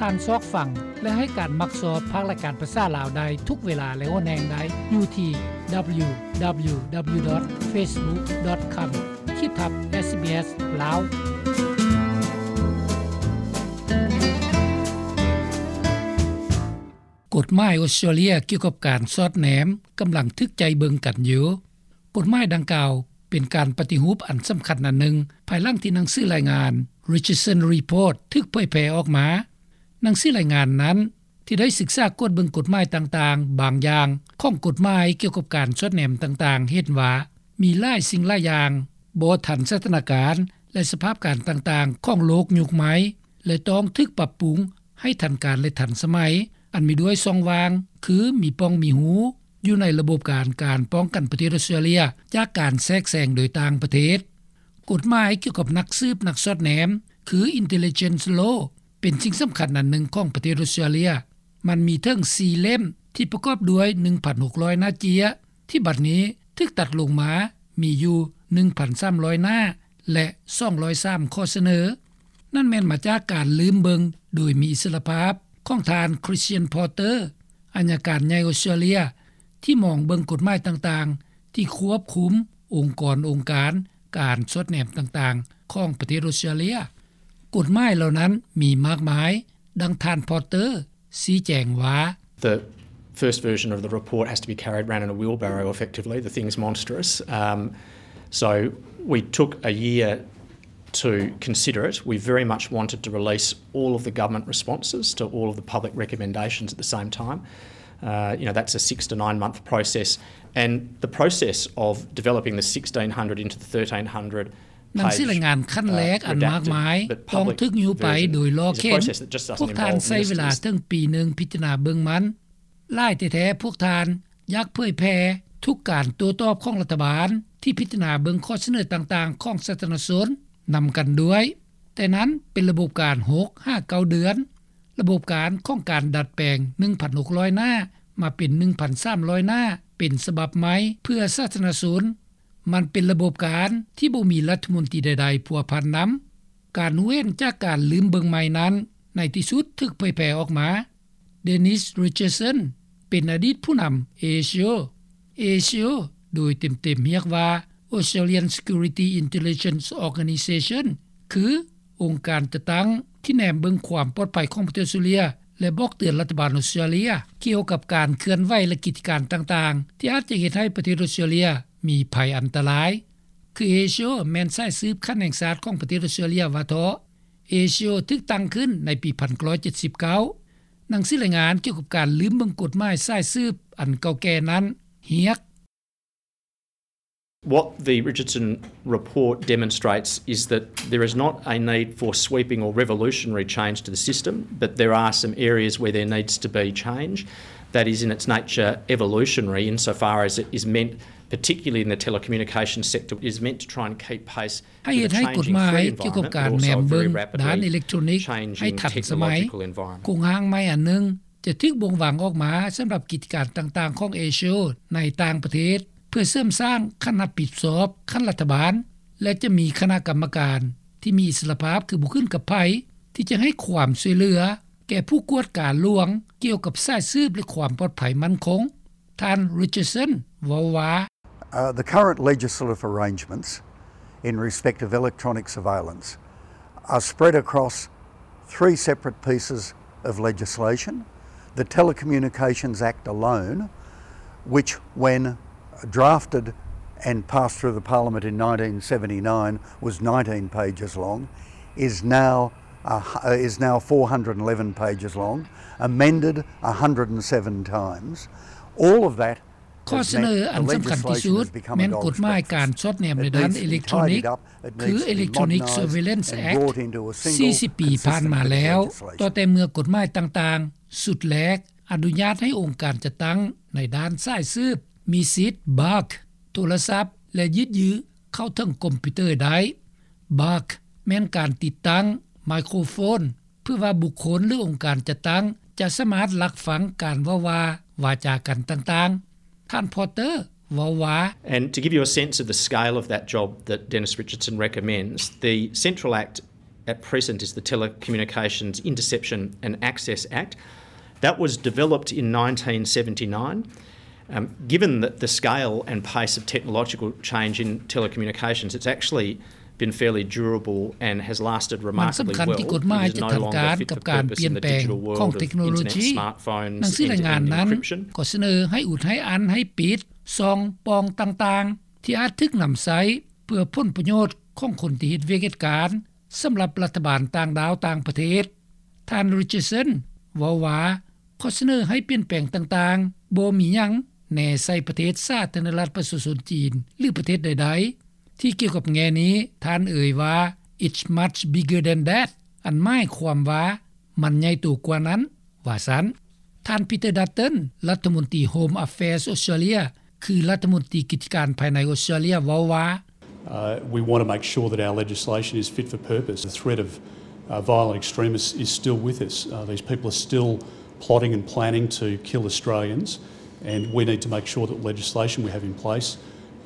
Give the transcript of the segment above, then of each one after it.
ທ່ານຊອກຟັງ ແລະ ໃຫ້ການມັກຊອບພາກລາຍການພາສາລາວໄດ້ທຸກເວລາ ແລະ ຫົນແຫ່ງໃດ ຢູ່ທີ່ www.facebook.com ຂີດທັບ SBS ລາວ. ກົດໝາຍອົດສະຕຣາເລຍກ່ຽວກັບການສອດແນມກຳລັງຖືກໃຈເບິ່ງກັນຢູ່. ກົດໝາຍດັ່ງກ່າວເປັນການປະຕິຮູບອັນສຳຄັນອັນໜຶ່ງ ພາຍຫຼັງທີ່ໜັງສືລາຍງານ Richardson Report ຖືກເຜີຍແຜ່ອອກມາ. ໜັງສືລາຍງານນັ້ນ ທີ່ໄດ້ສຶກສາກວດເບິ່ງກົດໝາຍຕ່າງໆ ບາງຢ່າງຂອງກົດໝາຍກ່ຽວກັບການສອດແນມຕ່າງໆ ເຫັນວ່າມີຫຼາຍສິ່ງຫຼາຍຢ່າງບໍ່ທັນສະຖານະການ ແລະ ສະພາບການຕ່າງໆຂອງໂລກຍຸກໃໝ່ ແລະ ຕ້ອງຖືກປັບປຸງໃຫ້ທັນການ ແລະ ທັນສະໄໝ, ອັນມີດ້ວຍຊ່ອງວ່າງ ຄືມີປ່ອງມີຮູ ຢູ່ໃນລະບົບການ ການປ້ອງກັນປະເທດອົດສະຕຣາເລຍ ຈາກການແຊກແຊງໂດຍຕ່າງປະເທດ. ກົດໝາຍກ່ຽວກັບນັກສືບນັກສອດແນມ ຄື Intelligence Law ເປັນສິ່ງສຳຄັນອັນໜຶ່ງຂອງປະເທດອົດສະຕຣາເລຍ. ມັນມີເຖິງສີ່ເຫຼັ້ມ ທີ່ປະກອບດ້ວຍໜຶ່ງພັນຫົກຮ້ອຍໜ້າເຈ້ຍ ທີ່ບັດນີ້ຖືກຕັດລົງມາ ມີຢູ່ໜຶ່ງພັນສາມຮ້ອຍໜ້າ ແລະ ສອງຮ້ອຍສາມຂໍ້ສະເໜີ. ນັ້ນແມ່ນມາຈາກການລືມເບິ່ງໂດຍມີອິດສະຫຼະພາບຂອງທ່ານ Christian Porter ອັຍການໃຫຍ່ອົດສະຕຣາເລຍ ທີ່ມອງເບິ່ງກົດໝາຍຕ່າງໆ ທີ່ຄວບຄຸມອົງກອນອົງການການສອດແນມຕ່າງໆຂອງປະເທດອົດສະຕຣາເລຍ. ກົດໝາຍເຫຼົ່ານັ້ນມີມາກມາຍ, ດັ່ງທ່ານ Porter ຊີ້ແຈງວ່າ The first version of the report has to be carried around in a wheelbarrow, effectively. The thing's monstrous. Um, so we took a year to consider it. We very much wanted to release all of the government responses to all of the public recommendations at the same time. Uh, you know, that's a six to nine month process. And the process of developing the sixteen hundred into the thirteen hundred ໜັງສືລາຍງານຂັ້ນແລກອັນມາກມາຍ ຕ້ອງຖືກຍູ້ໄປໂດຍລໍ້ເຂັນ. ພວກທ່ານໃຊ້ເວລາເຖິງປີໜຶ່ງພິຈາລະນາເບິ່ງມັນ. ຫຼາຍແທ້ໆພວກທ່ານຢາກເຜີຍແຜ່ທຸກການໂຕ້ຕອບຂອງລັດຖະບານ ທີ່ພິຈາລະນາເບິ່ງຂໍ້ສະເໜີຕ່າງໆຂອງສາທາລະນະຊົນນຳກັນດ້ວຍ. ແຕ່ນັ້ນເປັນລະບົບການຫົກຫາເກົ້າເດືອນ. ລະບົບການຂອງການດັດແປງໜຶ່ງພັນຫົກຮ້ອຍໜ້າ ມາເປັນໜຶ່ງພັນສາມຮ້ອຍໜ້າ ເປັນສະບັບໃໝ່ເພື່ອສາທາລະນະຊົນ. ມັນເປັນລະບົບການທີ່ບໍ່ມີລັດຖະມົນຕີໃດໆພົວພັນນຳ. ການຮູ້ເຫັນຈາກການລືມເບິ່ງໃໝ່ນັ້ນ ໃນທີ່ສຸດຖືກເຜີຍແຜ່ອອກມາ. Dennis Richardson ເປັນອະດີດຜູ້ນຳ ASIO. ASIO ໂດຍເຕັມໆຮຽກວ່າ Australian Security Intelligence Organisation ຄື ອົງການຈັດຕັ້ງທີ່ແນມເບິ່ງຄວາມປອດໄພຂອງປະເທດອົດສະຕຣາເລຍ ແລະ ບອກເຕືອນລັດຖະບານອົດສະຕຣາເລຍ ກ່ຽວກັບການເຄື່ອນໄຫວ ແລະ ກິດຈະການຕ່າງໆ ທີ່ອາດຈະເຮັດໃຫ້ປະເທດອົດສະຕຣາເລຍມີໄພອັນຕະລາຍ. ຄື ASIO ແມ່ນສາຍສືບຂັ້ນແຫ່ງຊາດຂອງປະເທດອົດສະຕຣາເລຍວ່າເທາະ. ASIO ຖືກຕັ້ງຂຶ້ນໃນປີໜຶ່ງພັນເກົ້າຮ້ອຍເຈັດສິບເກົ້າ. ໜັງສືລາຍງານກ່ຽວກັບການລືມເບິ່ງກົດໝາຍສາຍສືບອັນເກົ່າແກ່ນັ້ນຮຽກ What the Richardson report demonstrates is that there is not a need for sweeping or revolutionary change to the system, but there are some areas where there needs to be change that is in its nature evolutionary insofar as it is meant, particularly in the telecommunications sector, is meant to try and keep pace ໃຫ້ເຮັດໃຫ້ກົດໝາຍກ່ຽວກັບການແນມເບິ່ງດ້ານເອເລັກໂທຣນິກໃຫ້ທັນສະໄໝ. ໂຄງຮ່າງໃໝ່ອັນໜຶ່ງຈະຖືກບົ່ງວາງອອກມາສຳລັບກິດຈະການຕ່າງໆຂອງ ASIO ໃນຕ່າງປະເທດ ເພື່ອເສີມສ້າງຂັ້ນຮັບຜິດຊອບຂັ້ນລັດຖະບານ ແລະ ຈະມີຄະນະກຳມະການທີ່ມີອິດສະຫຼະພາບ ຄືບໍ່ຂຶ້ນກັບໃຜ ທີ່ຈະໃຫ້ຄວາມຊ່ວຍເຫຼືອແກ່ຜູ້ກວດກາຫຼວງກ່ຽວກັບສາຍສືບ ແລະ ຄວາມປອດໄພໝັ້ນຄົງ. ທ່ານ Richardson ເວົ້າວ່າ Uh, the current legislative arrangements in respect of electronic surveillance are spread across three separate pieces of legislation. The Telecommunications Act alone, which when drafted and passed through the Parliament in nineteen seventy-nine, was nineteen pages long, is now, uh, is now four hundred and eleven pages long, amended a hundred and seven times. All of that ຂໍ້ສະເໜີອັນສຳຄັນທີ່ສຸດແມ່ນກົດໝາຍການສອດແນມໃນດ້ານເອເລັກໂທຣນິກ ຄື Electronic Surveillance Act ສີ່ສິບປີຜ່ານມາແລ້ວ. ຕໍ່ແຕ່ເມື່ອກົດໝາຍຕ່າງໆຊຸດແລກອະນຸຍາດໃຫ້ອົງການຈັດຕັ້ງໃນດ້ານສາຍສືບມີສິດ Bug ໂທລະສັບ ແລະ ຍືດເຂົ້າເຖິງຄອມພິວເຕີໄດ້. Bug ແມ່ນການຕິດຕັ້ງໄມໂຄຣໂຟນ ເພື່ອວ່າບຸກຄົນ ຫຼື ອົງການຈັດຕັ້ງຈະສາມາດລັກຟັງການເວົ້າວ່າວາຈາກັນຕ່າງໆ. ທ່ານ Porter ເວົ້າວ່າ And to give you a sense of the scale of that job that Dennis Richardson recommends, the Central Act at present is the Telecommunications Interception and Access Act. That was developed in nineteen seventy-nine. Um, given that the scale and pace of technological change in telecommunications, it's actually been fairly durable and has lasted remarkably well. ມັນສຳຄັນທີ່ກົດໝາຍຈະທັນການກັບການປ່ຽນແປງຂອງເທັກໂນໂລຈີ. ໜັງສືລາຍງານນັ້ນກໍສະເໜີໃຫ້ອຸດ, ໃຫ້ອັນ, ໃຫ້ປິດຊ່ອງປ່ອງຕ່າງໆ ທີ່ອາດຖືກນຳໃຊ້ເພື່ອຜົນປະໂຫຍດຂອງຄົນທີ່ເຮັດວຽກເຮັດການ ສຳລັບລັດຖະບານຕ່າງດ້າວຕ່າງປະເທດ. ທ່ານ Richardson ເວົ້າວ່າ ຂໍ້ສະເໜີໃຫ້ປ່ຽນແປງຕ່າງໆ ບໍ່ມີຫຍັງແນໃສ່ປະເທດສາທາລະນະລັດປະຊາຊົນຈີນ ຫຼື ປະເທດໃດໆ. ທີ່ກ່ຽວກັບແງ່ນີ້ ທ່ານເອີ່ຍວ່າ It's much bigger than that. ອັນໝາຍຄວາມວ່າ ມັນໃຫຍ່ໂຕກວ່ານັ້ນ, ວ່າຊັ້ນ. ທ່ານ Peter Dutton ລັດຖະມົນຕີ Home Affairs ອອສເຕຣເລັຽ ຄືລັດຖະມົນຕີກິດຈະການພາຍໃນອອສເຕຣເລັຽ ເວົ້າວ່າ Uh, we want to make sure that our legislation is fit for purpose. The threat of, uh, violent extremists is still with us. Uh, these people are still plotting and planning to kill Australians, and we need to make sure that legislation we have in place,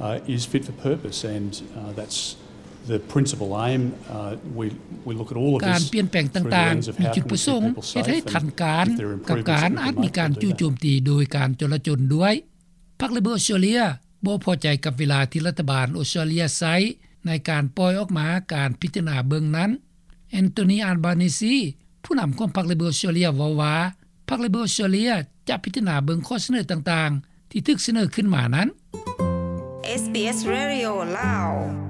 uh, is fit for purpose, and, uh, that's the principal aim. Uh, we, we look at all of this through the lens of how can we keep people safe, and if there are improvements that we can make, we'll do that. ການປ່ຽນແປງຕ່າງໆ ມີຈຸດປະສົງເຮັດໃຫ້ທັນການກັບການອາດມີການຈູ່ໂຈມຕີໂດຍການຈໍລະຈົນດ້ວຍ. ພັກ Labor ອອສເຕຣເລັຽ ບໍ່ພໍໃຈກັບເວລາທີ່ລັດຖະບານອອສເຕຣເລັຽໃຊ້ໃນການປ່ອຍອອກມາການພິຈາລະນາເບິ່ງນັ້ນ. Anthony Albanese ຜູ້ນຳຂອງພັກ Labor ອອສເຕຣເລັຽ ເວົ້າວ່າ ພັກ Labor ອອສເຕຣເລັຽ ຈະພິຈາລະນາເບິ່ງຂໍ້ສະເໜີຕ່າງໆ ທີ່ຖືກສະເໜີຂຶ້ນມານັ້ນ. SBS Radio ລາວ.